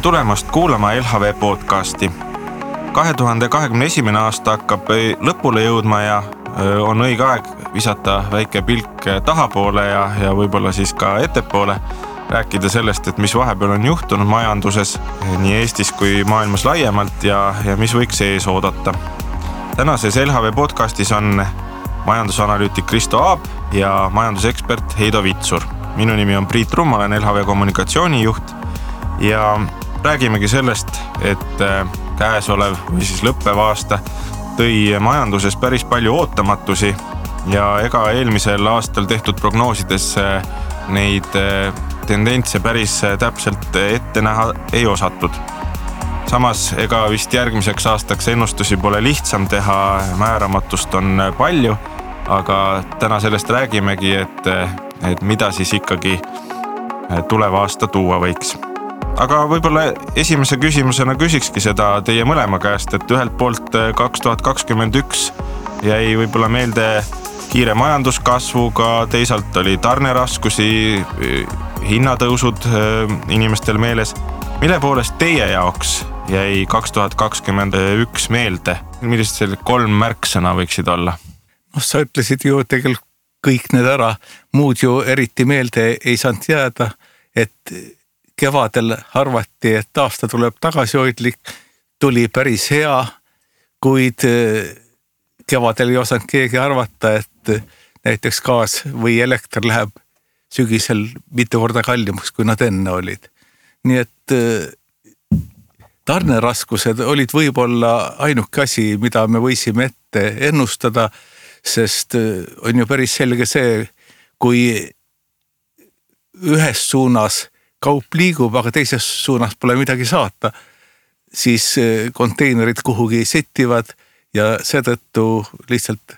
tulemast kuulama LHV podcasti. 2021. aasta hakkab lõpule jõudma ja on õige aeg visata väike pilk tahapoole ja võib-olla siis ka ettepoole. Rääkida sellest, et mis vahepeal on juhtunud majanduses nii Eestis kui maailmas laiemalt ja mis võiks ees oodata. Tänases LHV podcastis on majandusanalüütik Kristo Aab ja majandusekspert Heido Vitsur. Minu nimi on Priit Rumm, olen LHV kommunikatsioonijuht ja räägimegi sellest, et käesolev või siis lõppev aasta tõi majanduses päris palju ootamatusi ja ega eelmisel aastal tehtud prognoosides neid tendentse päris täpselt ette näha ei osatud. Samas ega vist järgmiseks aastaks ennustusi pole lihtsam teha, määramatust on palju, aga täna sellest räägimegi, et mida siis ikkagi tuleva aasta tuua võiks. Aga võib-olla esimese küsimusena küsikski seda teie mõlema käest, et ühelt poolt 2021 jäi võib-olla meelde kiire majanduskasvuga, teisalt oli tarneraskusi, hinnatõusud inimestel meeles. Mille poolest teie jaoks jäi 2021 meelde? Millised selle 3 märksõna võiksid olla? Sa ütlesid ju tegelikult kõik need ära, muud ju eriti meelde ei saanud jääda, et kevadel arvati, et aasta tuleb tagasihoidlik, tuli päris hea, kuid kevadel ei osanud keegi arvata, et näiteks gaas või elekter läheb sügisel mitu korda kallimaks, kui nad enne olid. Nii et tarneraskused olid võib-olla ainuke asi, mida me võisime ette ennustada, sest on ju päris selge see, kui ühes suunas kaup liigub, aga teises suunas pole midagi saata, siis konteinerid kuhugi settivad ja seetõttu lihtsalt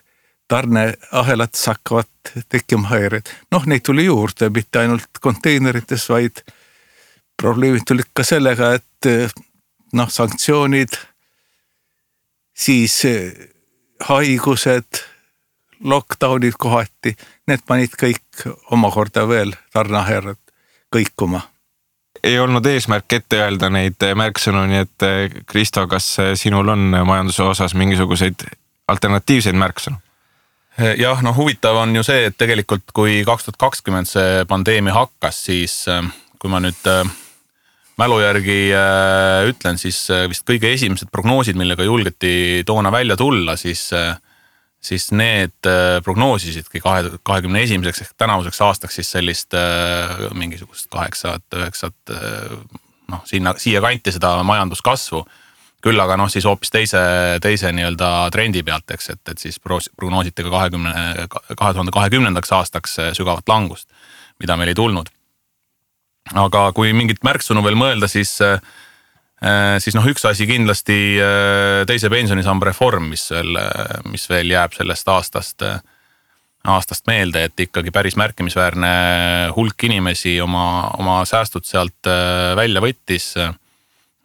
tarneahelates hakkavad tekkima häired. Neid tuli juurde, mitte ainult konteinerites, vaid probleemid tulid ka sellega, et sanktsioonid, siis haigused, lockdownid kohati, need panid kõik omakorda veel tarneahelad kõikuma. Ei olnud eesmärk ette öelda neid märksõnu, nii et Kristo, kas sinul on majanduse osas mingisuguseid alternatiivseid märksõnu? Jah, huvitav on ju see, et tegelikult kui 2020 see pandeemia hakkas, siis kui ma nüüd mälu järgi ütlen, siis vist kõige esimesed prognoosid, millega julgeti toona välja tulla, siis need prognoosisidki 21. ehk tänavuseks aastaks siis sellist mingisugust 8-9, siia kanti seda majanduskasvu. Küll aga siis hoopis teise nii-öelda trendi pealt, et siis prognoositi ka 2020. aastaks sügavat langust, mida meil ei tulnud. Aga kui mingit märksõnu veel mõelda, siis üks asi kindlasti teise pensionisamba reform, mis veel jääb sellest aastast meelde, et ikkagi päris märkimisväärne hulk inimesi oma säästud sealt välja võttis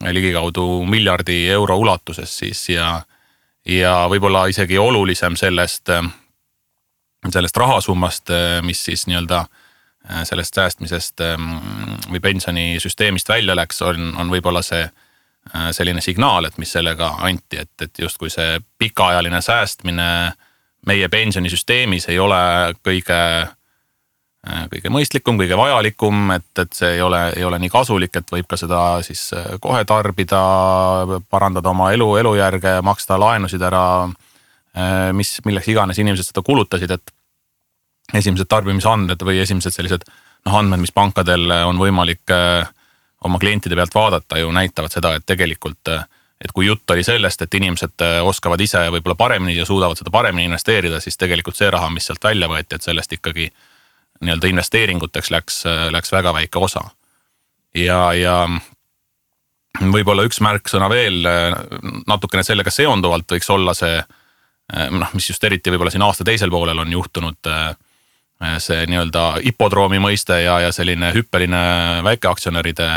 ligikaudu miljardi euro ulatuses siis ja võib-olla isegi olulisem sellest rahasummast, mis siis nii-öelda sellest säästmisest või pensionisüsteemist välja läks, on võib-olla see selline signaal, et mis sellega anti, et justkui see pikaajaline säästmine meie pensionisüsteemis ei ole kõige mõistlikum, kõige vajalikum, et see ei ole nii kasulik, et võib ka seda siis kohe tarbida, parandada oma elujärge, maksta laenusid ära, milleks iganes inimesed seda kulutasid, et esimesed tarbimisandmed või esimesed sellised andmed, mis pankadel on võimalik oma klientide pealt vaadata, ju näitavad seda, et tegelikult, et kui jutt oli sellest, et inimesed oskavad ise võib-olla paremini ja suudavad seda paremini investeerida, siis tegelikult see raha, mis sealt välja võeti, et sellest ikkagi nii-öelda investeeringuteks läks väga väike osa. Ja võib-olla üks märksõna veel natukene sellega seonduvalt võiks olla see, mis just eriti võib-olla siin aasta teisel poolel on juhtunud, see nii-öelda hipodroomi mõiste ja selline hüppeline väikeaktsionäride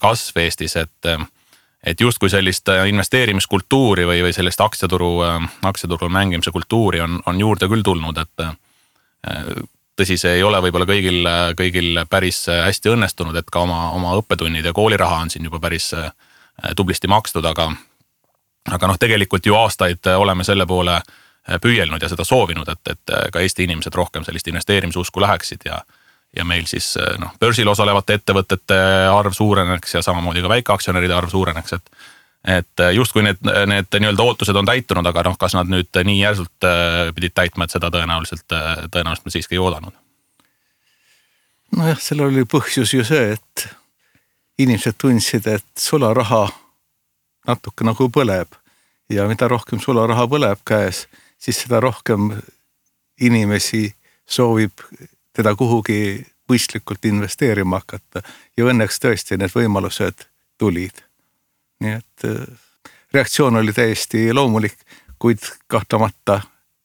kasv Eestis, et justkui sellist investeerimiskultuuri või sellist aktsiaturul mängimise kultuuri on juurde küll tulnud, et tõsi, see ei ole võib-olla kõigil päris hästi õnnestunud, et ka oma õppetunnid ja kooliraha on siin juba päris tublisti makstud, aga noh, tegelikult ju aastaid oleme selle poole püüelnud ja seda soovinud, et ka Eesti inimesed rohkem sellist investeerimisusku läheksid ja meil siis noh, börsil osalevate ettevõtete arv suureneks ja samamoodi ka väikeaktsionäride arv suureneks, et justkui need nii-öelda ootused on täitunud, aga noh, kas nad nüüd nii järsult pidid täitma, et seda tõenäoliselt me siiski ei oodanud. Nojah, seal oli põhjus ju see, et inimesed tundsid, et sularaha natuke nagu põleb ja mida rohkem sularaha põleb käes, siis seda rohkem inimesi soovib teda kuhugi mõistlikult investeerima hakata ja õnneks tõesti need võimalused tulid. Nii et reaktsioon oli täiesti loomulik, kuid kahtlemata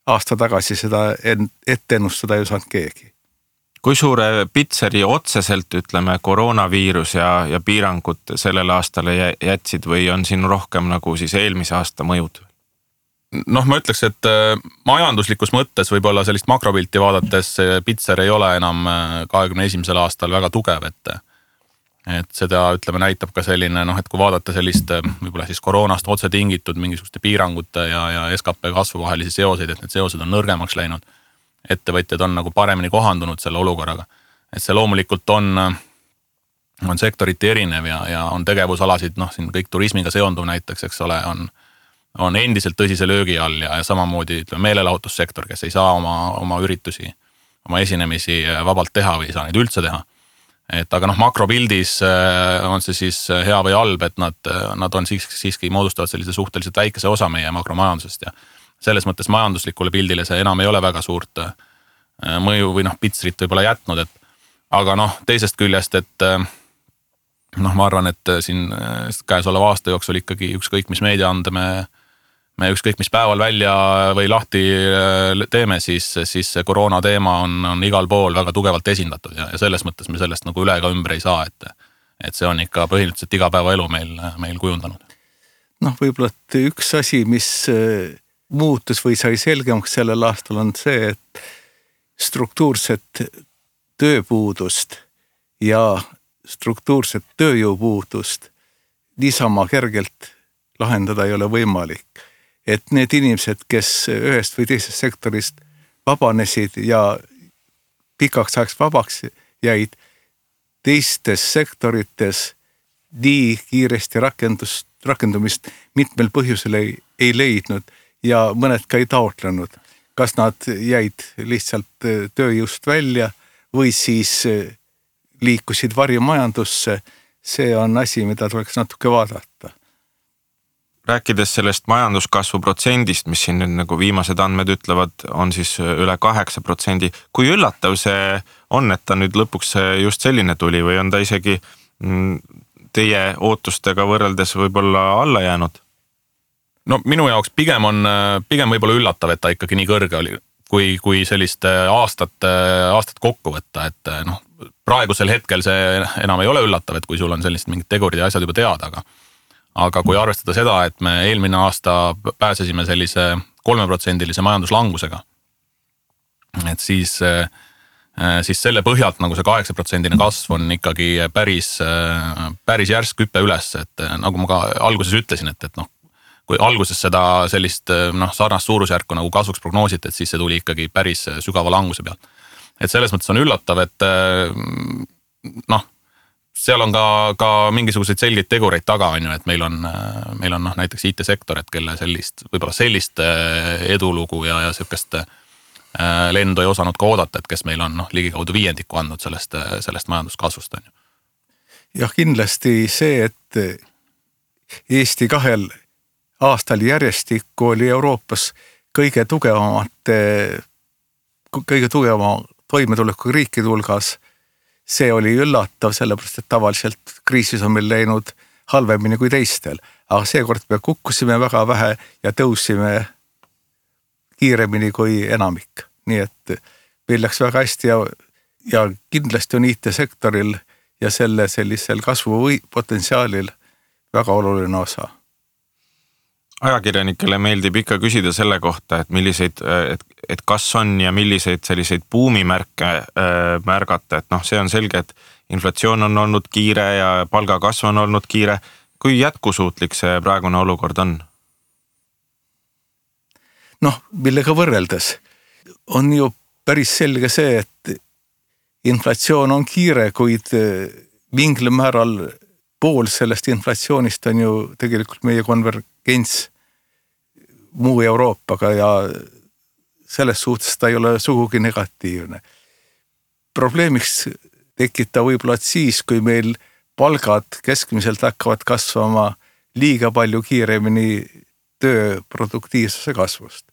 aasta tagasi seda ette ennustada ei saanud keegi. Kui suure pitseri otseselt, ütleme, koroonaviirus ja piirangud sellel aastale jätsid või on siin rohkem nagu siis eelmise aasta mõjud? Noh, ma ütleks, et majanduslikus mõttes võib-olla sellist makropilti vaadates pitser ei ole enam 21. aastal väga tugev, et seda, ütleme, näitab ka selline, noh, et kui vaadata sellist võib-olla siis koroonast otse tingitud mingisuguste piirangute ja SKP kasvu vahelisi seoseid, et need seosed on nõrgemaks läinud. Ettevõtjad on nagu paremini kohandunud selle olukorraga. Et see loomulikult on sektoriti erinev ja on tegevusalasid, noh, siin kõik turismiga seonduv näiteks, eks ole, on endiselt tõsise löögi all ja samamoodi ütleme, meelelahutussektor, kes ei saa oma üritusi, oma esinemisi vabalt teha või ei saa neid üldse teha. Et aga noh, makropildis on see siis hea või halb, et nad on siiski moodustavad sellise suhteliselt väikese osa meie makromajandusest ja selles mõttes majanduslikule pildile see enam ei ole väga suurt mõju või noh, pitsrit võib-olla jätnud, aga noh, teisest küljest, et noh, ma arvan, et siin käesoleva aasta jooksul ikkagi ükskõik mis meediaande me ükskõik mis päeval välja või lahti teeme, siis see koroona teema on igal pool väga tugevalt esindatud ja selles mõttes me sellest nagu üle ega ümber ei saa, et see on ikka põhiliselt igapäevaelu meil kujundanud. Noh, võib-olla üks asi, mis muutus või sai selgemaks sellel aastal on see, et struktuurset tööpuudust ja struktuurset tööjõupuudust niisama kergelt lahendada ei ole võimalik. Et need inimesed, kes ühest või teisest sektorist vabanesid ja pikaks ajaks vabaks jäid, teistes sektorites nii kiiresti rakendumist mitmel põhjusel ei leidnud ja mõned ka ei taotlenud. Kas nad jäid lihtsalt tööjõust välja või siis liikusid varimajandusse, see on asi, mida tuleks natuke vaadata. Rääkides sellest majanduskasvu protsendist, mis siin nüüd nagu viimased andmed ütlevad, on siis üle 8%. Kui üllatav see on, et ta nüüd lõpuks just selline tuli või on ta isegi teie ootustega võrreldes võib-olla alla jäänud? No minu jaoks pigem võib-olla üllatav, et ta ikkagi nii kõrge oli, kui sellist aastat kokku võtta, et noh, praegusel hetkel see enam ei ole üllatav, et kui sul on sellist mingid tegurid ja asjad juba teada, aga kui arvestada seda, et me eelmine aasta pääsesime sellise 3% majanduslangusega, et siis selle põhjalt nagu see 8% kasv on ikkagi päris järsk hüpe üles, et nagu ma ka alguses ütlesin, et noh, kui alguses seda sellist sarnast suurusjärku nagu kasvuks prognoositi, et siis see tuli ikkagi päris sügava languse pealt. Et selles mõttes on üllatav, et noh, seal on ka mingisuguseid selgeid tegureid taga, on ju, et meil on näiteks IT-sektor, et kelle võib-olla sellist edulugu ja sellist lendu ei osanud ka oodata, et kes meil on ligikaudu 5% andnud sellest majanduskasvust, on ju. Jah, kindlasti see, et Eesti 2 aastal järjestikku oli Euroopas kõige tugevama toimetuleku riikide hulgas. See oli üllatav, sellepärast, et tavaliselt kriisis on meil läinud halvemini kui teistel. Aga seekord me kukkusime väga vähe ja tõusime kiiremini kui enamik. Nii et meil läks väga hästi ja kindlasti on IT-sektoril ja sellisel kasvu potentsiaalil väga oluline osa. ajakirjanikele meeldib ikka küsida selle kohta, et milliseid, et kas on ja milliseid selliseid buumimärke märgata, et noh, see on selge, et inflatsioon on olnud kiire ja palgakasv on olnud kiire. Kui jätkusuutlik see praegune olukord on? Noh, millega võrreldes on ju päris selge see, et inflatsioon on kiire, kuid mingil määral pool sellest inflatsioonist on ju tegelikult meie konvergents muu Euroopaga ja selles suhtes ta ei ole sugugi negatiivne. Probleemiks tekitab võib-olla siis, kui meil palgad keskmiselt hakkavad kasvama liiga palju kiiremini töö produktiivsuse kasvust.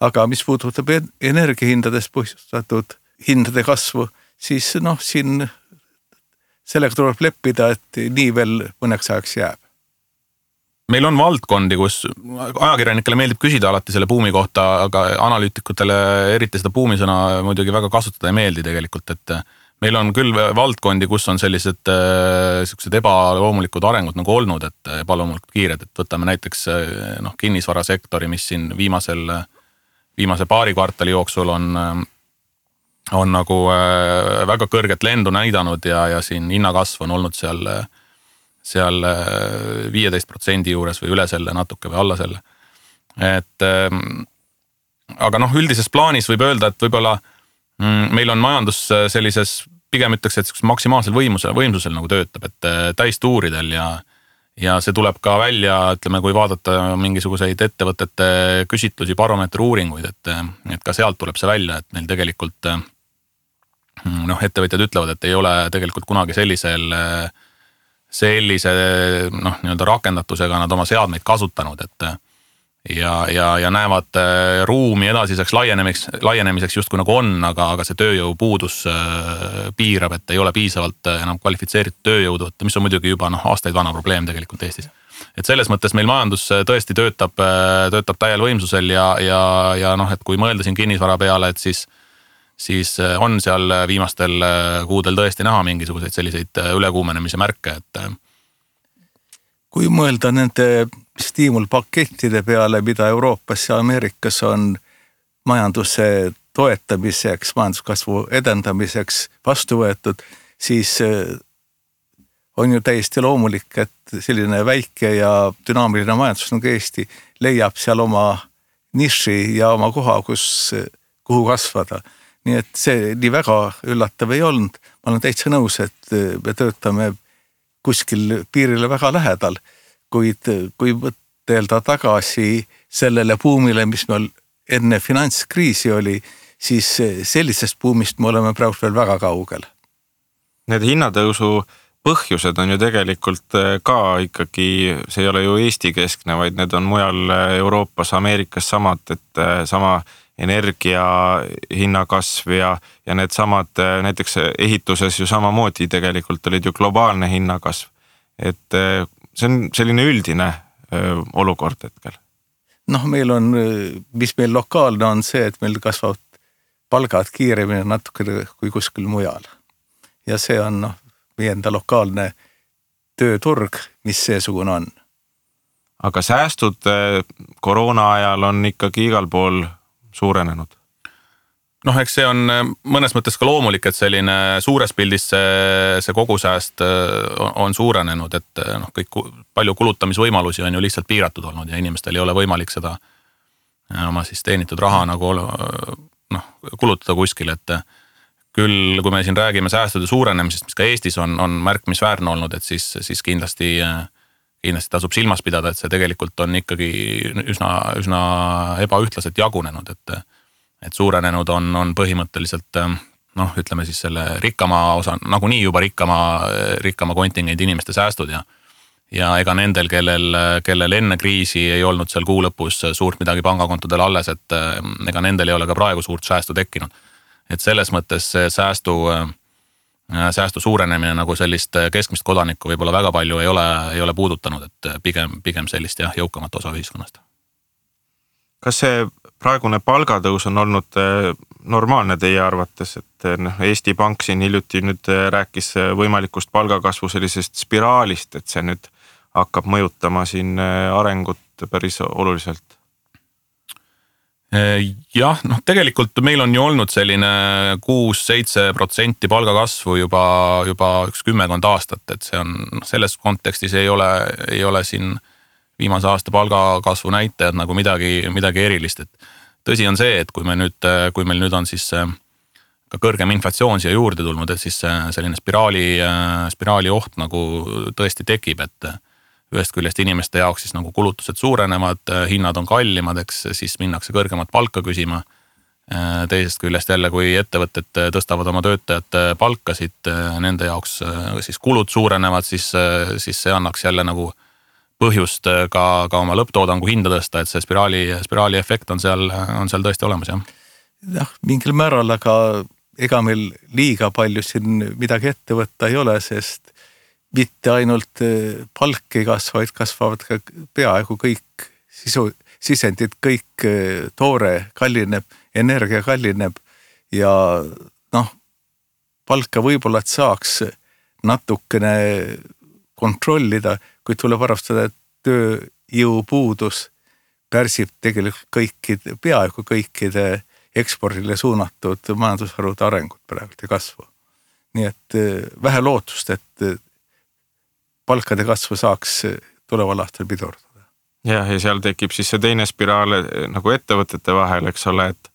Aga mis puudutab energiahindades põhjustatud hindade kasvu, siis noh, siin sellega tuleb leppida, et nii veel mõneks ajaks jääb. Meil on valdkondi, kus ajakirjanikele meeldib küsida alati selle buumi kohta, aga analüütikutele eriti seda buumisõna muidugi väga kasutada ei meeldi tegelikult, et meil on küll valdkondi, kus on sellised ebaloomulikud arengud nagu olnud, et ebaloomulikult kiired, et võtame näiteks kinnisvarasektori, mis siin viimase paari kvartali jooksul on nagu väga kõrget lendu näidanud ja siin hinnakasv on olnud seal 15% juures või üle selle natuke või alla selle. Aga noh, üldises plaanis võib öelda, et võib-olla meil on majandus sellises, pigem ütleks, et maksimaalsel võimsusel nagu töötab, et täistuuridel ja see tuleb ka välja, ütleme, kui vaadata mingisuguseid ettevõtete küsitlusi, baromeetri uuringuid, et ka sealt tuleb see välja, et meil tegelikult ettevõtjad ütlevad, et ei ole tegelikult kunagi sellise nii-öelda rakendatusega nad oma seadmeid kasutanud, et ja näevad ruumi edasiseks laienemiseks justkui nagu on, aga see tööjõupuudus piirab, et ei ole piisavalt enam kvalifitseeritud tööjõudu, mis on muidugi juba aastaid vana probleem tegelikult Eestis. Et selles mõttes meil majandus tõesti töötab täiel võimsusel ja et kui mõelda siin kinnisvara peale, et siis on seal viimastel kuudel tõesti näha mingisuguseid selliseid ülekuumenemise märke, et kui mõelda nende stiimulpakettide peale, mida Euroopas ja Ameerikas on majanduse toetamiseks, majanduskasvu edendamiseks vastu võetud, siis on ju täiesti loomulik, et selline väike ja dünaamiline majandus nagu Eesti leiab seal oma niši ja oma koha, kuhu kasvada. Nii et see nii väga üllatav ei olnud. Ma olen täitsa nõus, et me töötame kuskil piirile väga lähedal, kuid kui võtelda tagasi sellele buumile, mis meil enne finantskriisi oli, siis sellisest buumist me oleme praegu veel väga kaugel. Need hinnatõusu põhjused on ju tegelikult ka ikkagi, see ei ole ju Eesti keskne, vaid need on mujal Euroopas, Ameerikas samad, et sama energia hinnakasv ja need samad, näiteks ehituses ju samamoodi tegelikult olid ju globaalne hinnakasv. Et see on selline üldine olukord hetkel. Meil on, mis meil lokaalne on see, et meil kasvavad palgad kiiremini natuke kui kuskil mujal. Ja see on meie enda lokaalne tööturg, mis seesugune on. Aga säästud koroona ajal on ikkagi igal pool suurenenud. Eks see on mõnes mõttes ka loomulik, et selline suures pildis see kogusääst on suurenenud, et kõik palju kulutamisvõimalusi on ju lihtsalt piiratud olnud ja inimestel ei ole võimalik seda oma siis teenitud raha nagu kulutada kuskil, et küll, kui me siin räägime säästude suurenemisest, mis ka Eestis on märkimisväärne olnud, et siis kindlasti tasub silmas pidada, et see tegelikult on ikkagi üsna ebaühtlaselt jagunenud, et suurenenud on põhimõtteliselt, ütleme siis selle rikkama osa, nagunii juba rikkama kontingendi inimeste säästud ja ega nendel, kellel enne kriisi ei olnud seal kuu lõpus suurt midagi pangakontodel alles, et ega nendel ei ole ka praegu suurt säästu tekkinud. Et selles mõttes säästu suurenemine nagu sellist keskmist kodanikku võib-olla väga palju ei ole puudutanud, et pigem sellist jõukamat osa ühiskonnast. Kas see praegune palgatõus on olnud normaalne teie arvates, et Eesti Pank siin hiljuti nüüd rääkis võimalikust palgakasvu sellisest spiraalist, et see nüüd hakkab mõjutama siin arengut päris oluliselt. Jah, noh tegelikult meil on ju olnud selline 6-7% palgakasvu juba üks 10 aastat, et see on selles kontekstis ei ole siin viimase aasta palgakasvu näitajad nagu midagi erilist, et tõsi on see, et kui meil nüüd on siis ka kõrgem inflatsioon siia juurde tulnud, et siis selline spiraali oht nagu tõesti tekib, et ühest küljest inimeste jaoks siis nagu kulutused suurenevad, hinnad on kallimad, eks siis minnakse kõrgemat palka küsima. Teisest küljest jälle, kui ettevõtted tõstavad oma töötajate palkasid, nende jaoks siis kulud suurenevad, siis see annaks jälle nagu põhjust ka oma lõpptoodangu hinda tõsta, et see spiraali efekt on seal tõesti olemas, jah. Jah, mingil määral, aga ega meil liiga palju siin midagi ette võtta ei ole, sest mitte ainult palk ei kasva, vaid kasvavad ka peaaegu kõik sisendid, kõik toore kallineb, energia kallineb ja palka võib-olla et saaks natukene kontrollida, kui tuleb arvestada, et tööjõupuudus pärsib tegelikult peaaegu kõikide ekspordile suunatud majandusharude arengut praegu ja kasvu. Nii et vähe lootust, et palkade kasvu saaks tuleval aastal pidurdada. Ja seal tekib siis see teine spiraal nagu ettevõtete vahel, eks ole, et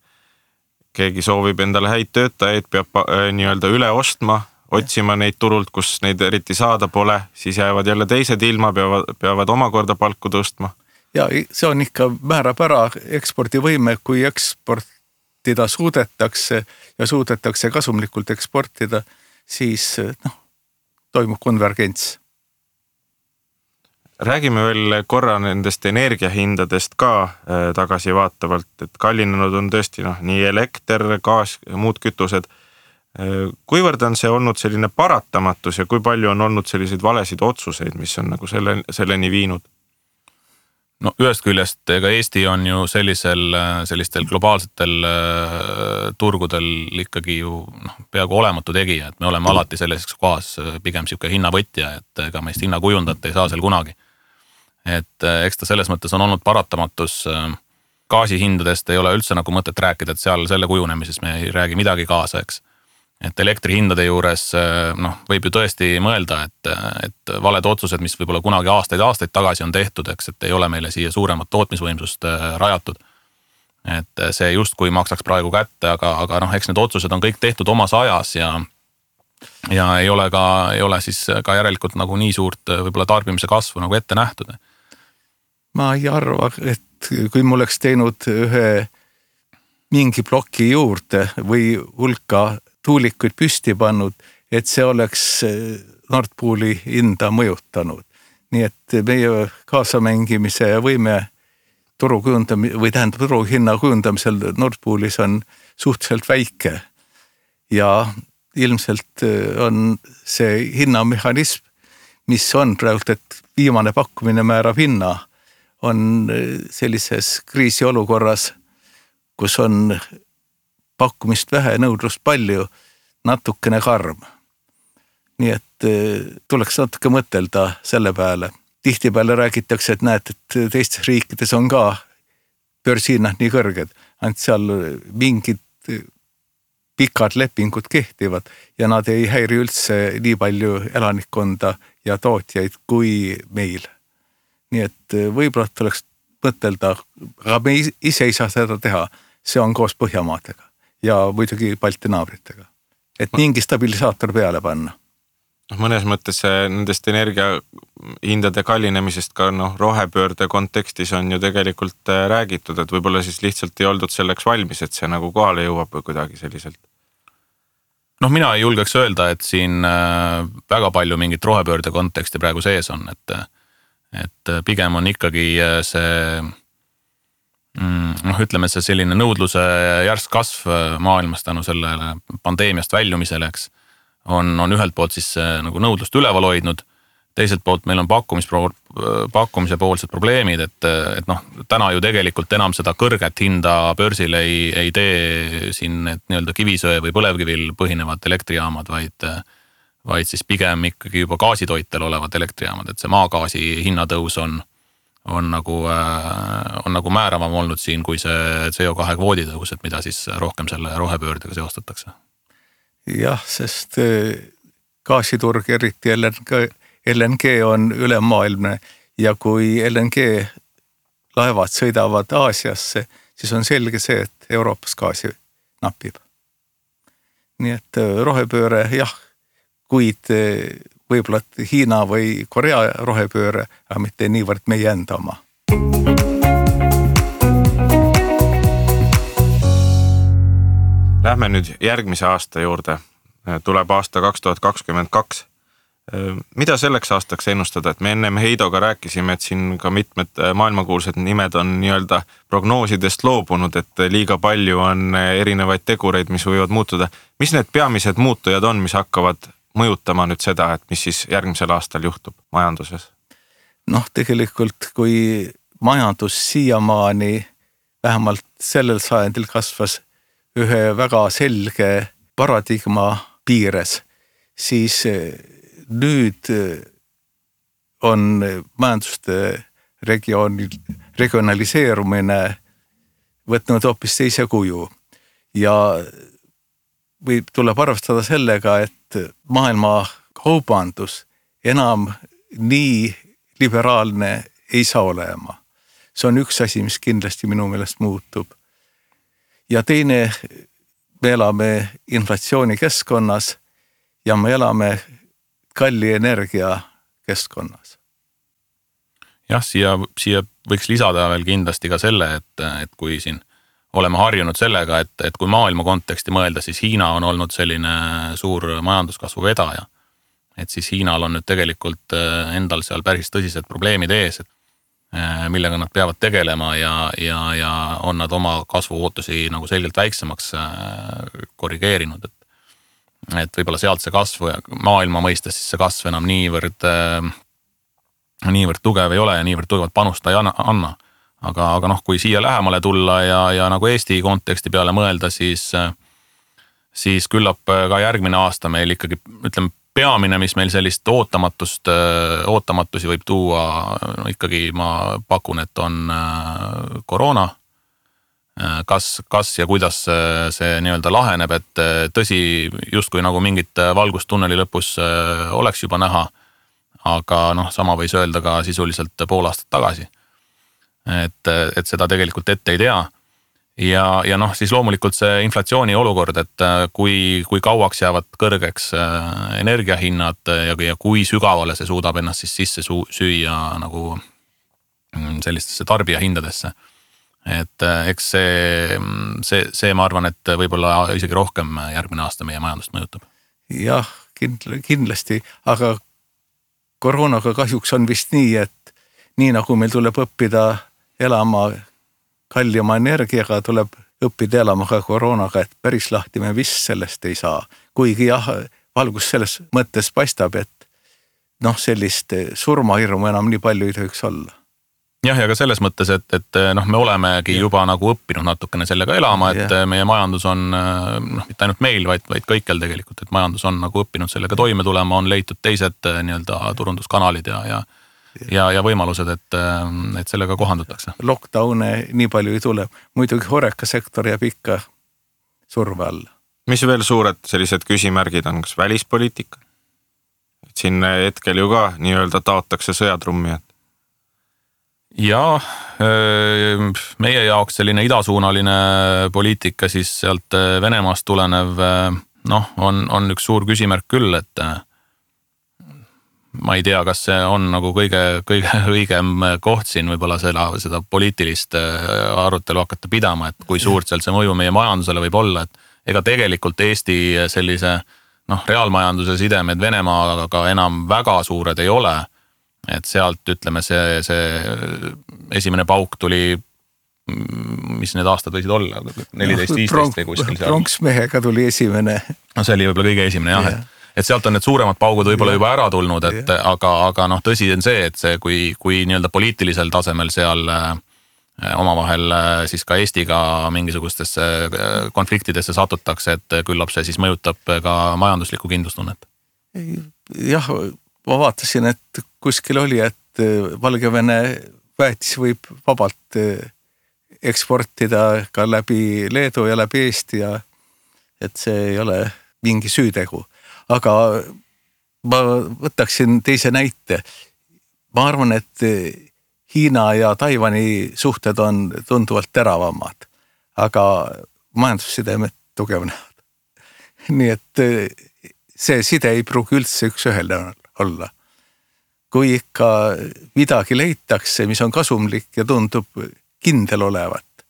keegi soovib endale häid töötajaid, peab nii-öelda üle ostma, otsima neid turult, kus neid eriti saada pole, siis jäävad jälle teised ilma, peavad omakorda palku tõstma. Ja see on ikka määrab ära ekspordivõime, kui eksportida suudetakse ja suudetakse kasumlikult eksportida, siis toimub konvergents. Räägime veel korra nendest energiahindadest ka tagasivaatavalt, et kallinenud on tõesti nii elekter, gaas, muud kütused. Kuivõrd on see olnud selline paratamatus ja kui palju on olnud selliseid valesid otsuseid, mis on nagu selleni viinud? No ühest küljest, ega Eesti on ju sellistel globaalsetel turgudel ikkagi ju peaaegu olematu tegija, et me oleme alati selliseks kohas pigem siuke hinnavõtja, et ega meist hinnakujundajat ei saa seal kunagi. Et eks ta selles mõttes on olnud paratamatus, gaasihindadest ei ole üldse nagu mõtet rääkida, et seal selle kujunemises me ei räägi midagi kaasa, eks. Et elektrihindade juures võib ju tõesti mõelda, et valed otsused, mis võib-olla kunagi aastaid tagasi on tehtud, eks, et ei ole meile siia suuremat tootmisvõimsust rajatud. Et see justkui maksaks praegu kätte, aga eks need otsused on kõik tehtud omas ajas ja ei ole siis ka järelikult nagu nii suurt võib-olla tarbimise kasvu nagu ette nähtud. Ma ei arva, et kui mul oleks teinud ühe mingi ploki juurde või hulka tuulikuid püsti pannud, et see oleks Nord Pooli hinda mõjutanud. Nii et meie kaasamängimise ja võime turuhinna kujundamisel Nord Poolis on suhteliselt väike ja ilmselt on see hinnamehhanism, mis on praegu, et viimane pakkumine määrab hinna, on sellises kriisiolukorras, kus on pakkumist vähe, nõudlust palju, natukene karm. Nii et tuleks natuke mõtelda selle peale. Tihtipeale räägitakse, et näed, et teistes riikides on ka börsihinnad nii kõrged, ainult seal mingid pikad lepingud kehtivad ja nad ei häiri üldse nii palju elanikkonda ja tootjaid kui meil. Nii et võib-olla tuleks mõtelda, aga me ise ei saa seda teha, see on koos Põhjamaadega ja muidugi Balti naabritega, et mingi stabilisaator peale panna. Mõnes mõttes nendest energiahindade kallinemisest ka rohepöörde kontekstis on ju tegelikult räägitud, et võib-olla siis lihtsalt ei oldud selleks valmis, et see nagu kohale jõuab kuidagi selliselt. Mina ei julgeks öelda, et siin väga palju mingit rohepöörde konteksti praegu sees on, et pigem on ikkagi see ütleme, see selline nõudluse järsk kasv maailmas tänu sellele pandeemiast väljumisele, eks, on ühelt poolt siis nagu nõudlust üleval hoidnud, teiselt poolt meil on pakkumise poolsed probleemid, et täna ju tegelikult enam seda kõrget hinda börsil ei tee siin need nii-öelda kivisöe või põlevkivil põhinevad elektrijaamad, vaid siis pigem ikkagi juba gaasitoitel olevad elektrijaamad, et see maagaasi hinnatõus on on nagu määravam olnud siin kui see CO2 kvoodi tõus, et mida siis rohkem selle rohepöördega seostatakse. Jah, sest gaasiturg, eriti LNG on ülemaailmne ja kui LNG laevad sõidavad Aasiasse, siis on selge see, et Euroopas gaasi napib. Nii et rohepööre, jah, kuid võib-olla Hiina või Korea rohepööre, aga mitte niivõrd meie enda oma. Lähme nüüd järgmise aasta juurde. Tuleb aasta 2022. Mida selleks aastaks ennustada, et me ennem Heidoga rääkisime, et siin ka mitmed maailmakuulsad nimed on nii-öelda prognoosidest loobunud, et liiga palju on erinevaid tegureid, mis võivad muutuda. Mis need peamised muutujad on, mis hakkavad mõjutama nüüd seda, et mis siis järgmisel aastal juhtub majanduses? Tegelikult kui majandus siiamaani vähemalt sellel sajandil kasvas ühe väga selge paradigma piires, siis nüüd on majanduste regionaliseerumine võtnud hoopis teise kuju ja tuleb arvestada sellega, et maailma kaubandus enam nii liberaalne ei saa olema. See on üks asi, mis kindlasti minu meelest muutub. Ja teine, me elame inflatsiooni keskkonnas ja me elame kalli energia keskkonnas. Jah, siia võiks lisada veel kindlasti ka selle, et kui siin oleme harjunud sellega, et kui maailma konteksti mõelda, siis Hiina on olnud selline suur majanduskasvu vedaja. Et siis Hiinal on nüüd tegelikult endal seal päris tõsised probleemid ees, millega nad peavad tegelema ja on nad oma kasvu ootusi nagu selgelt väiksemaks korrigeerinud. Et võib-olla sealt see kasvu ja maailma mõistes siis see kasv enam niivõrd tugev ei ole ja niivõrd tugevat panusta ei anna. Aga kui siia lähemale tulla ja nagu Eesti konteksti peale mõelda, siis küllap ka järgmine aasta meil ikkagi, ütleme, peamine, mis meil sellist ootamatusi võib tuua, ikkagi ma pakun, et on koroona. Kas ja kuidas see nii-öelda laheneb, et tõsi, justkui nagu mingit valgust tunneli lõpus oleks juba näha, aga sama võis öelda ka sisuliselt pool aastat tagasi. Et seda tegelikult ette ei tea. Ja siis loomulikult see inflatsiooni olukord, et kui kauaks jäävad kõrgeks energiahinnad ja kui sügavale see suudab ennast siis sisse süüa nagu sellistesse tarbijahindadesse. Et eks see ma arvan, et võib-olla isegi rohkem järgmine aasta meie majandust mõjutab. Jah, kindlasti, aga koroonaga kahjuks on vist nii, et nii nagu meil tuleb õppida elama kallima energiaga, tuleb õppida elama ka koroonaga, et päris lahti me vist sellest ei saa. Kuigi jah, valgus selles mõttes paistab, et sellist surmahirmu enam nii palju ei tohiks olla. Jah, ja ka selles mõttes, et me olemegi juba nagu õppinud natukene sellega elama, et meie majandus on, mitte ainult meil, vaid kõikjal tegelikult, et majandus on nagu õppinud sellega toime tulema, on leitud teised nii-öelda turunduskanalid ja võimalused, et sellega kohandutakse. Lockdowne nii palju ei tule. Muidugi horekasektor jääb ikka surve alla. Mis veel suured sellised küsimärgid on, kas välispoliitika? Siin hetkel ju ka nii-öelda taotakse sõjatrummi, et ja meie jaoks selline idasuunaline poliitika siis sealt Venemaast tulenev on üks suur küsimärk küll, et ma ei tea, kas see on nagu kõige õigem koht siin võib-olla seda poliitilist arutelu hakata pidama, et kui suurt sealt see mõju meie majandusele võib olla, et ega tegelikult Eesti sellise reaalmajanduse sidemed Venemaaga enam väga suured ei ole. Et sealt ütleme see esimene pauk tuli, mis need aastad võisid olla, 14-15 või kuskil seal. Pronksmehega tuli esimene. See oli võib-olla kõige esimene jah, et sealt on need suuremad paugud võib-olla juba ära tulnud, aga tõsi on see, et see kui nii-öelda poliitilisel tasemel seal omavahel siis ka Eestiga mingisugustesse konfliktidesse satutakse, et küllap see siis mõjutab ka majanduslikku kindlustunnet. Jah, ma vaatasin, et kuskil oli, et Valgevene väetis võib vabalt eksportida ka läbi Leedu ja läbi Eesti ja et see ei ole mingi süütegu. Aga ma võtaksin teise näite. Ma arvan, et Hiina ja Taiwani suhted on tunduvalt teravamad, aga majandussidemed tugevnevad. Nii et see side ei pruugi üldse üks ühele olla. Kui ikka midagi leitakse, mis on kasumlik ja tundub kindel olevat,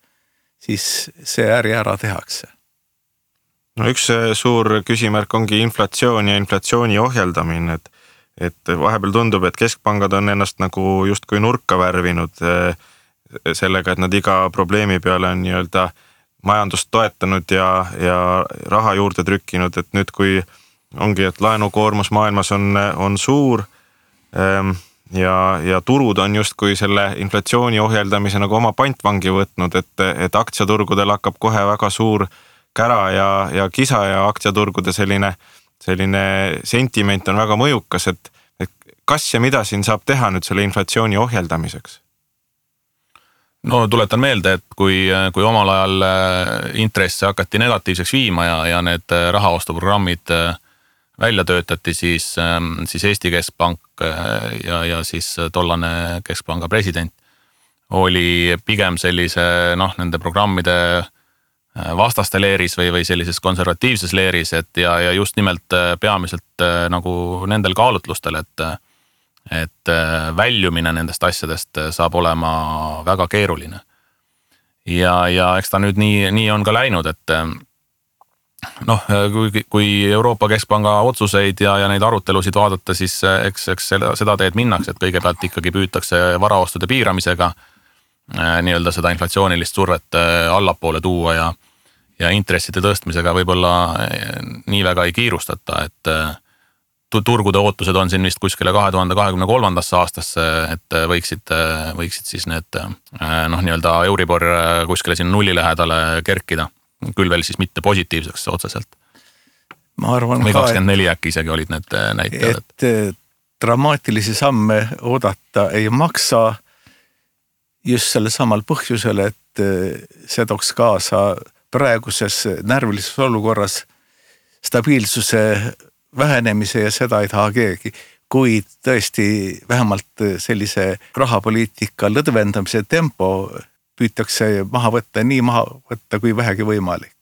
siis see äri ära tehakse. No üks suur küsimärk ongi inflatsioon ja inflatsiooni ohjeldamine, et vahepeal tundub, et keskpangad on ennast nagu justkui nurka värvinud sellega, et nad iga probleemi peale on nii-öelda majandust toetanud ja raha juurde trükkinud, et nüüd kui ongi, et laenukoormus maailmas on suur ja turud on justkui selle inflatsiooni ohjeldamise nagu oma pantvangi võtnud, et aktsiaturgudel hakkab kohe väga suur kära ja kisa ja aktsiaturgude selline sentiment on väga mõjukas, et kas ja mida siin saab teha nüüd selle inflatsiooni ohjeldamiseks? No tuletan meelde, et kui omal ajal intresse hakati negatiivseks viima ja need rahaostuprogrammid välja töötati, siis Eesti Keskpank ja siis tollane Keskpanga president oli pigem sellise nende programmide vastaste leeris või sellises konservatiivses leeris, ja just nimelt peamiselt nagu nendel kaalutlustel, et väljumine nendest asjadest saab olema väga keeruline. Ja eks ta nüüd nii on ka läinud, et kui Euroopa Keskpanga otsuseid ja neid arutelusid vaadata, siis eks seda teed minnakse, et kõigepealt ikkagi püütakse varaostude piiramisega nii-öelda seda inflatsioonilist survet allapoole tuua ja intresside tõstmisega võib-olla nii väga ei kiirustata, et turgude ootused on siin vist kuskile 2023. aastasse, et võiksid siis need nii-öelda Euribor kuskile siin nulli lähedale kerkida, küll veel siis mitte positiivseks otseselt. Ma arvan või 24 äkki isegi olid need näitajad. Et dramaatilisi samme oodata ei maksa just selle samal põhjusel, et see tooks kaasa praeguses närvilises olukorras stabiilsuse vähenemise ja seda ei taha keegi. Kui tõesti vähemalt sellise rahapoliitika lõdvendamise tempo püütakse maha võtta kui vähegi võimalik.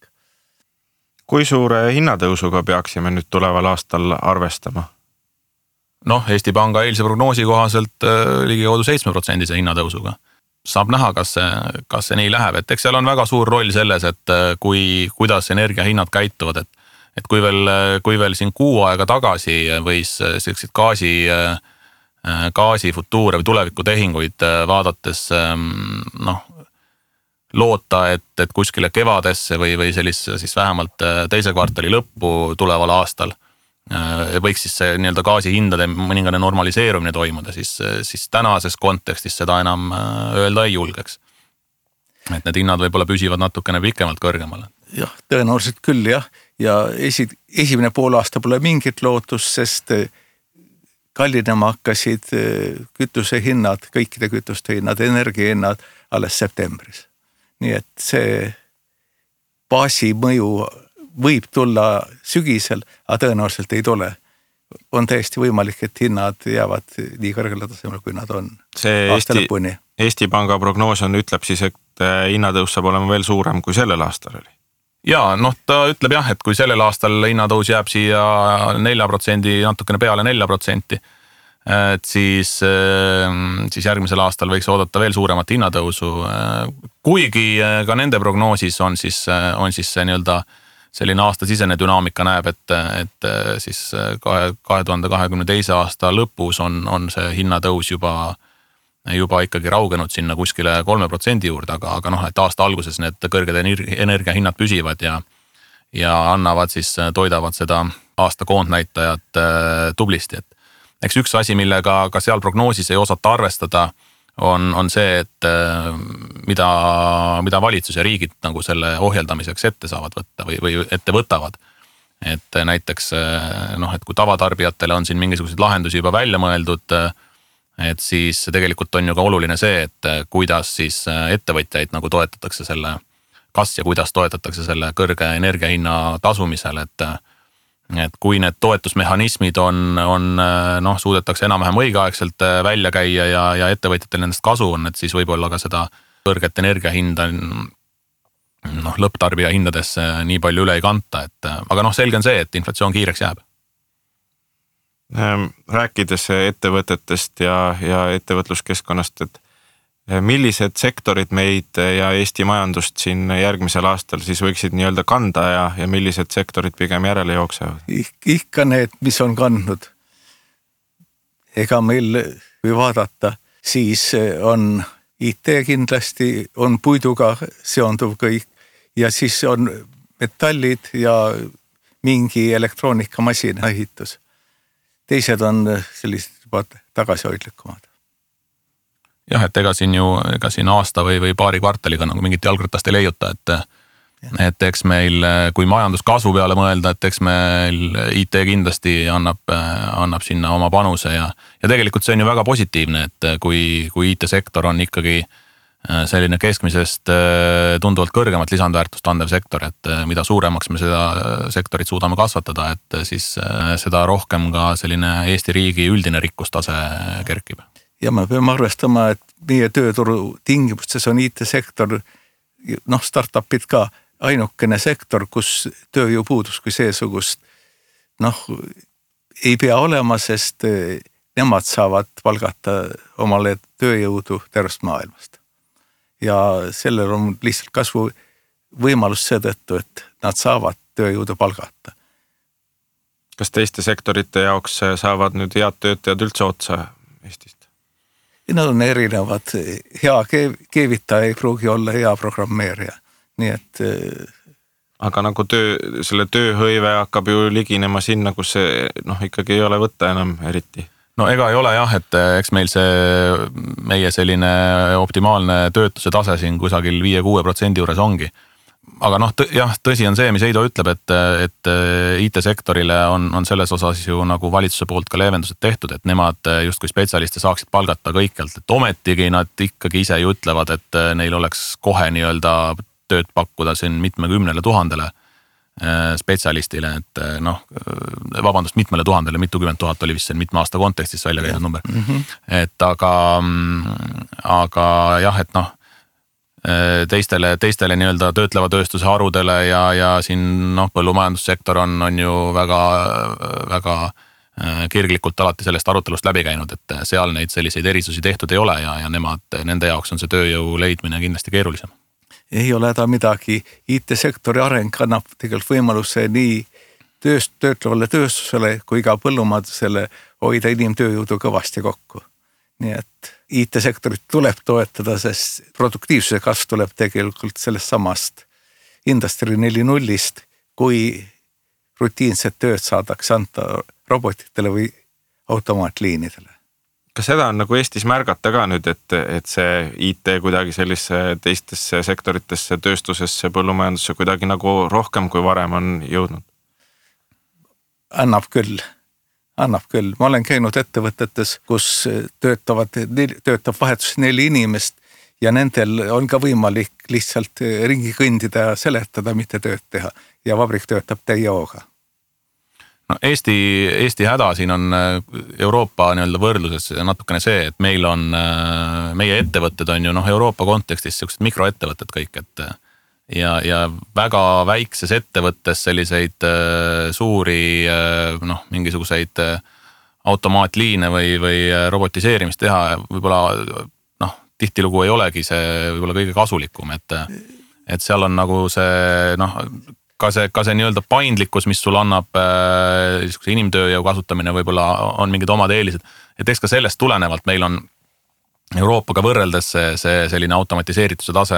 Kui suure hinnatõusuga peaksime nüüd tuleval aastal arvestama? Eesti Panga eilse prognoosi kohaselt ligikaudu 7% hinnatõusuga. Saab näha, kas see nii läheb, et eks seal on väga suur roll selles, et kuidas energiahinnad käituvad, et kui veel siin kuu aega tagasi võis selliseid gaasifutuure või tulevikutehinguid vaadates loota, et kuskile kevadesse või sellise siis vähemalt teise kvartali lõppu tuleval aastal võiks siis see nii-öelda gaasihindade mõningane normaliseerumine toimuda, siis tänases kontekstis seda enam öelda ei julgeks. Et need hinnad võib-olla püsivad natukene pikemalt kõrgemale. Jah, tõenäoliselt küll jah. Ja esimene pool aasta pole mingit lootust, sest kallinema hakkasid kütusehinnad, kõikide kütuste hinnad, energiahinnad alles septembris. Nii et see baasi mõju võib tulla sügisel, aga tõenäoliselt ei tule. On täiesti võimalik, et hinnad jäävad nii kõrgele tasemel, kui nad on aasta lõpuni. Eesti Panga prognoos ütleb siis, et hinnatõus saab olema veel suurem kui sellel aastal oli. Ja ta ütleb jah, et kui sellel aastal hinnatõus jääb siia 4%, natukene peale 4%, et siis järgmisel aastal võiks oodata veel suuremat hinnatõusu. Kuigi ka nende prognoosis on siis see nii-öelda selline aastasisene dünaamika näeb, et siis 2022. aasta lõpus on see hinnatõus juba ikkagi raugenud sinna kuskile 3% juurde, aga et aasta alguses need kõrged energiahinnad püsivad ja annavad siis, toidavad seda aasta koondnäitajat tublisti. Et eks üks asi, millega ka seal prognoosis ei osata arvestada, on see, et mida valitsus ja riigid nagu selle ohjeldamiseks ette saavad võtta või ette võtavad. Et näiteks, et kui tavatarbijatele on siin mingisuguseid lahendusi juba välja mõeldud, et siis tegelikult on ju ka oluline see, et kuidas siis ettevõtjaid nagu toetatakse selle, kas ja kuidas toetatakse selle kõrge energiahinna tasumisel, et kui need toetusmehhanismid on suudetakse enam-vähem õigeaegselt välja käia ja ettevõtjatel nendest kasu on, et siis võib-olla ka seda kõrget energiahinda lõpptarbija hindadesse nii palju üle ei kanta, aga selge on see, et inflatsioon kiireks jääb. Rääkides ettevõtetest ja ettevõtluskeskkonnast, et millised sektorid meid ja Eesti majandust siin järgmisel aastal siis võiksid nii-öelda kanda ja millised sektorid pigem järele jooksevad? Ikka need, mis on kandnud. Ega meil või vaadata, siis on IT kindlasti, on puiduga seonduv kõik ja siis on metallid ja mingi elektroonikamasina ehitus. Teised on sellised juba tagasihoidlikumad. Jah, et ega siin aasta või paari kvartaliga nagu mingit jalgratast ei leiuta, et eks meil, kui majanduskasvu peale mõelda, et eks meil IT kindlasti annab sinna oma panuse ja tegelikult see on ju väga positiivne, et kui IT-sektor on ikkagi selline keskmisest tunduvalt kõrgemat lisandväärtust andev sektor, et mida suuremaks me seda sektorit suudame kasvatada, et siis seda rohkem ka selline Eesti riigi üldine rikkustase kerkib. Ja me peame arvestama, et meie tööturu tingimustes on IT-sektor, startupid ka ainukene sektor, kus tööjõupuudus kui seesugust ei pea olema, sest nemad saavad palgata omale tööjõudu tervest maailmast. Ja sellel on lihtsalt kasvu võimalus seetõttu, et nad saavad tööjõudu palgata. Kas teiste sektorite jaoks saavad nüüd head töötajad üldse otsa Eestist? Nad on erinevad. Hea keevitaja ei pruugi olla hea programmeerija. Nii et... Aga nagu selle tööhõive hakkab ju liginema sinna, kus see ikkagi ei ole võtta enam eriti. No ega ei ole jah, et eks meil meie selline optimaalne töötuse tase siin kusagil 5-6% juures ongi. Aga tõsi on see, mis Heido ütleb, et IT-sektorile on selles osas ju nagu valitsuse poolt ka leevendused tehtud, et nemad justkui spetsialiste saaksid palgata kõikjalt, et ometigi nad ikkagi ise ju ütlevad, et neil oleks kohe nii-öelda tööd pakkuda siin mitmekümnele tuhandele spetsialistile, et mitmele tuhandele, mitukümmend tuhat oli vist see mitme aasta kontekstis välja käidud number. Et aga jah, et teistele nii-öelda töötleva tööstuse harudele ja siin põllumajandussektor on ju väga kirglikult alati sellest arutelust läbi käinud, et seal neid selliseid erisusi tehtud ei ole ja nende jaoks on see tööjõu leidmine kindlasti keerulisem. Ei ole häda midagi. IT-sektori areng annab tegelikult võimaluse nii töötlevale tööstusele kui ka põllumajandusele hoida inimtööjõudu kõvasti kokku. Nii et IT-sektorit tuleb toetada, sest produktiivsuse kasv tuleb tegelikult sellest samast Industry 4.0-st, kui rutiinset tööd saadaks anda robotitele või automaatliinidele. Kas seda on nagu Eestis märgata ka nüüd, et see IT kuidagi sellise teistesse sektoritesse, tööstusesse, põllumajandusse kuidagi nagu rohkem kui varem on jõudnud? Annab küll. Ma olen käinud ettevõtetes, kus töötab vahetus 4 inimest ja nendel on ka võimalik lihtsalt ringi kõndida ja seletada, mitte tööd teha. Ja vabrik töötab täie hooga. No Eesti häda siin on Euroopa nii-öelda võrdluses natukene see, et meie ettevõtted on ju Euroopa kontekstis sellised mikroettevõtted kõik, et ja väga väikses ettevõttes selliseid suuri mingisuguseid automaatliine või robotiseerimist teha võib-olla tihtilugu ei olegi see võib-olla kõige kasulikum, et seal on nagu see ka see nii-öelda paindlikkus, mis sul annab inimtööjõu kasutamine võib-olla on mingid omad eelised, et eks ka sellest tulenevalt meil on Euroopaga võrreldes see selline automatiseerituse tase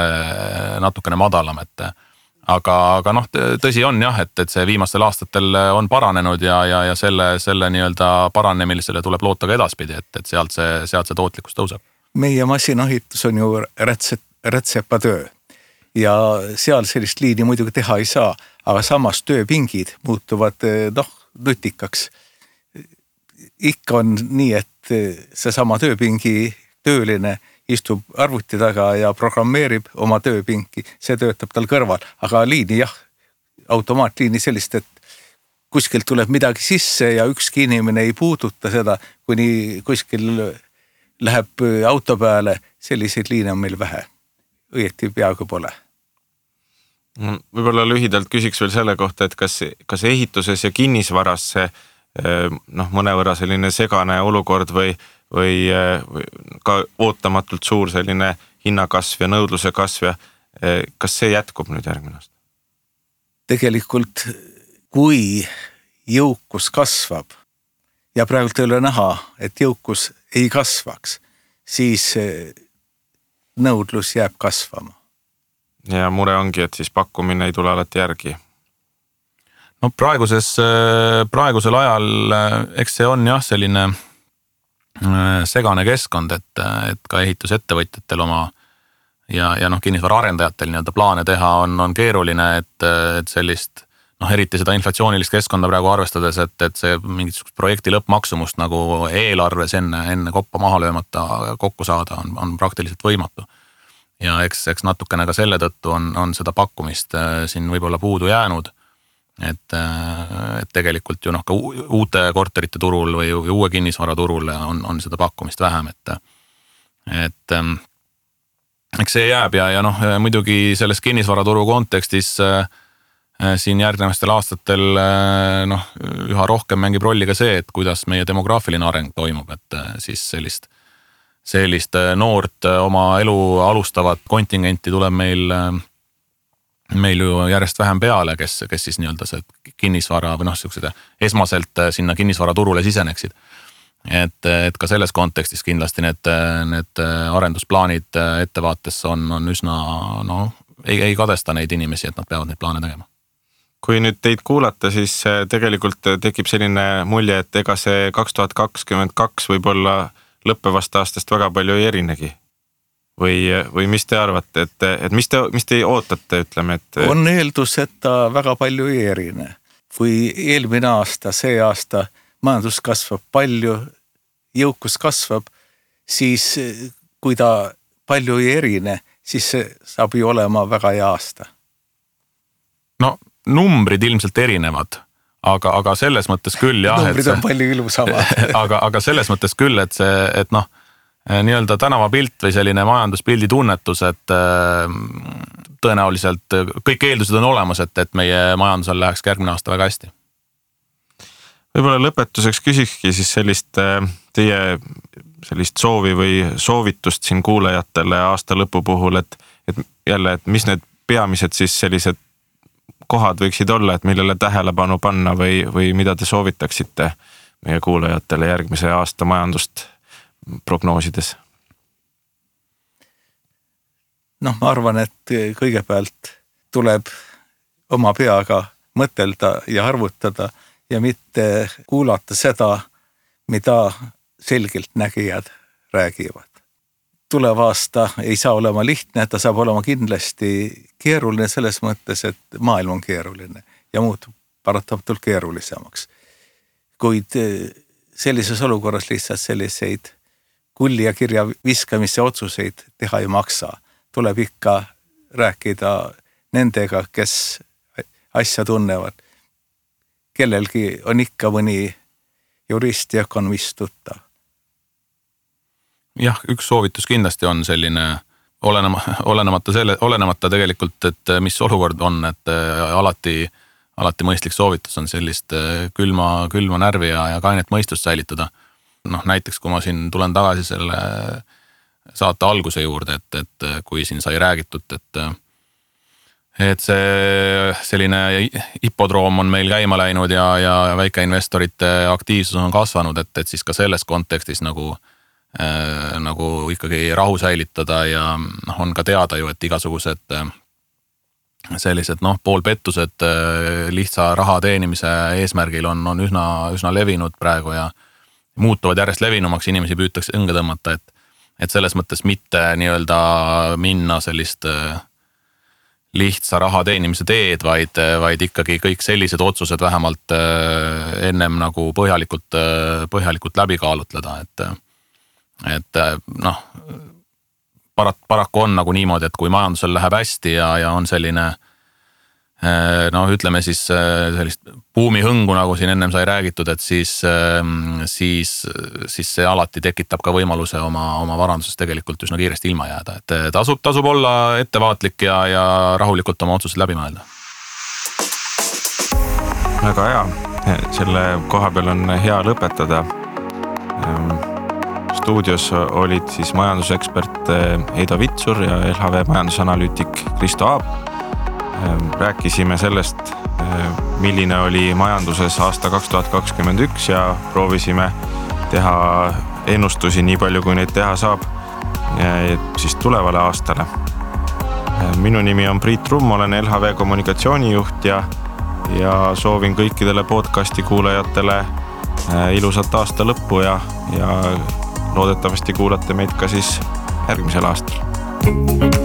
natukene madalam, aga tõsi on jah, et see viimastel aastatel on paranenud ja selle nii-öelda paranemisele tuleb loota ka edaspidi, et sealt see tootlikkus tõuseb. Meie masinaehitus on ju rätsepatöö ja seal sellist liini muidugi teha ei saa, aga samas tööpingid muutuvad nutikaks. ikka on nii, et seesama tööpingi tööline istub arvuti taga ja programmeerib oma tööpinki, see töötab tal kõrval, aga liini automaatliini sellist, et kuskilt tuleb midagi sisse ja ükski inimene ei puuduta seda, kuni kuskil läheb auto peale, selliseid liine on meil vähe. Õieti peaaegu pole. Võib-olla lühidalt küsiks veel selle kohta, et kas ehituses ja kinnisvaras see mõnevõrra selline segane olukord või ka ootamatult suur selline hinnakasv ja nõudluse kasv ja kas see jätkub nüüd järgmine aasta? Tegelikult kui jõukus kasvab ja praegu ei ole näha, et jõukus ei kasvaks, siis nõudlus jääb kasvama. Ja mure ongi, et siis pakkumine ei tule alati järgi. No praegusel ajal, eks see on jah selline segane keskkond, et ka ehitusettevõtjatel oma ja kinnisvara arendajatel nii-öelda plaane teha on keeruline, et sellist, eriti seda inflatsioonilist keskkonda praegu arvestades, et see mingisugust projekti lõppmaksumust nagu eelarves enne koppa maha löömata kokku saada on praktiliselt võimatu. Ja eks natukene ka selle tõttu on seda pakkumist siin võib-olla puudu jäänud, et tegelikult ju ka uute korterite turul või uue kinnisvara turul on seda pakkumist vähem, et eks see jääb ja muidugi selles kinnisvaraturu kontekstis siin järgnevatel aastatel üha rohkem mängib rolli ka see, et kuidas meie demograafiline areng toimub, et siis sellist noort oma elu alustavat kontingenti tuleb meil ju järjest vähem peale, kes siis nii-öelda see kinnisvara või sellised esmaselt sinna kinnisvaraturule siseneksid. Et ka selles kontekstis kindlasti need arendusplaanid ettevaates on üsna, ei kadesta neid inimesi, et nad peavad neid plaane tegema. Kui nüüd teid kuulata, siis tegelikult tekib selline mulje, et ega see 2022 võib-olla lõppevast aastast väga palju ei erinegi. Või mis te arvate, et mis te ootate, ütleme, et... On eeldus, et ta väga palju ei erine. Kui eelmine aasta, see aasta majandus kasvab palju, jõukus kasvab, siis kui ta palju ei erine, siis see saab ju olema väga hea aasta. No numbrid ilmselt erinevad, aga selles mõttes küll jah. Numbrid on palju ilusama. aga selles mõttes küll, et nii-öelda tänavapilt või selline majanduspildi tunnetus, et tõenäoliselt kõik eeldused on olemas, et meie majandusel läheks järgmine aasta väga hästi. Võib-olla lõpetuseks küsikski siis teie sellist soovi või soovitust siin kuulajatele aasta lõpu puhul, et jälle, et mis need peamised siis sellised kohad võiksid olla, et millele tähelepanu panna või mida te soovitaksite meie kuulajatele järgmise aasta majandust prognoosides? Ma arvan, et kõigepealt tuleb oma peaga mõtelda ja arvutada ja mitte kuulata seda, mida selgelt nägijad räägivad. Tulev aasta ei saa olema lihtne, ta saab olema kindlasti keeruline selles mõttes, et maailm on keeruline ja muutub paratamatult keerulisemaks. Kuid sellises olukorras lihtsalt selliseid kulli ja kirja viskamise otsuseid teha ei maksa. Tuleb ikka rääkida nendega, kes asja tunnevad. Kellelgi on ikka mõni jurist ja ökonomist tuttav. Jah, üks soovitus kindlasti on selline, olenemata tegelikult, et mis olukord on, et alati mõistlik soovitus on sellist külma närvi ja kainet mõistust säilitada. Näiteks kui ma siin tulen tagasi selle saate alguse juurde, et kui siin sai räägitud, et see selline hipodroom on meil käima läinud ja väikeinvestorite aktiivsus on kasvanud, et siis ka selles kontekstis nagu ikkagi rahu säilitada ja on ka teada ju, et igasugused sellised poolpettused lihtsa raha teenimise eesmärgil on üsna levinud praegu ja muutuvad järjest levinumaks, inimesi püütakse õnge tõmmata, et selles mõttes mitte nii-öelda minna sellist lihtsa raha teenimise teed, vaid ikkagi kõik sellised otsused vähemalt ennem nagu põhjalikult läbi kaalutleda, et noh, paraku on nagu niimoodi, et kui majandusel läheb hästi ja on selline noh, ütleme siis sellist buumihõngu, nagu siin ennem sai räägitud, et siis see alati tekitab ka võimaluse oma varandusest tegelikult üsna kiiresti ilma jääda, et tasub olla ettevaatlik ja rahulikult oma otsused läbi mõelda. Väga hea, selle koha peal on hea lõpetada. Stuudios olid siis majandusekspert Heido Vitsur ja LHV majandusanalüütik Kristo Aab. Rääkisime sellest, milline oli majanduses aasta 2021 ja proovisime teha ennustusi nii palju, kui neid teha saab siis tulevale aastale. Minu nimi on Priit Rumm, olen LHV kommunikatsioonijuht ja soovin kõikidele podcasti kuulajatele ilusat aasta lõppu ja loodetavasti kuulate meid ka siis järgmisel aastal.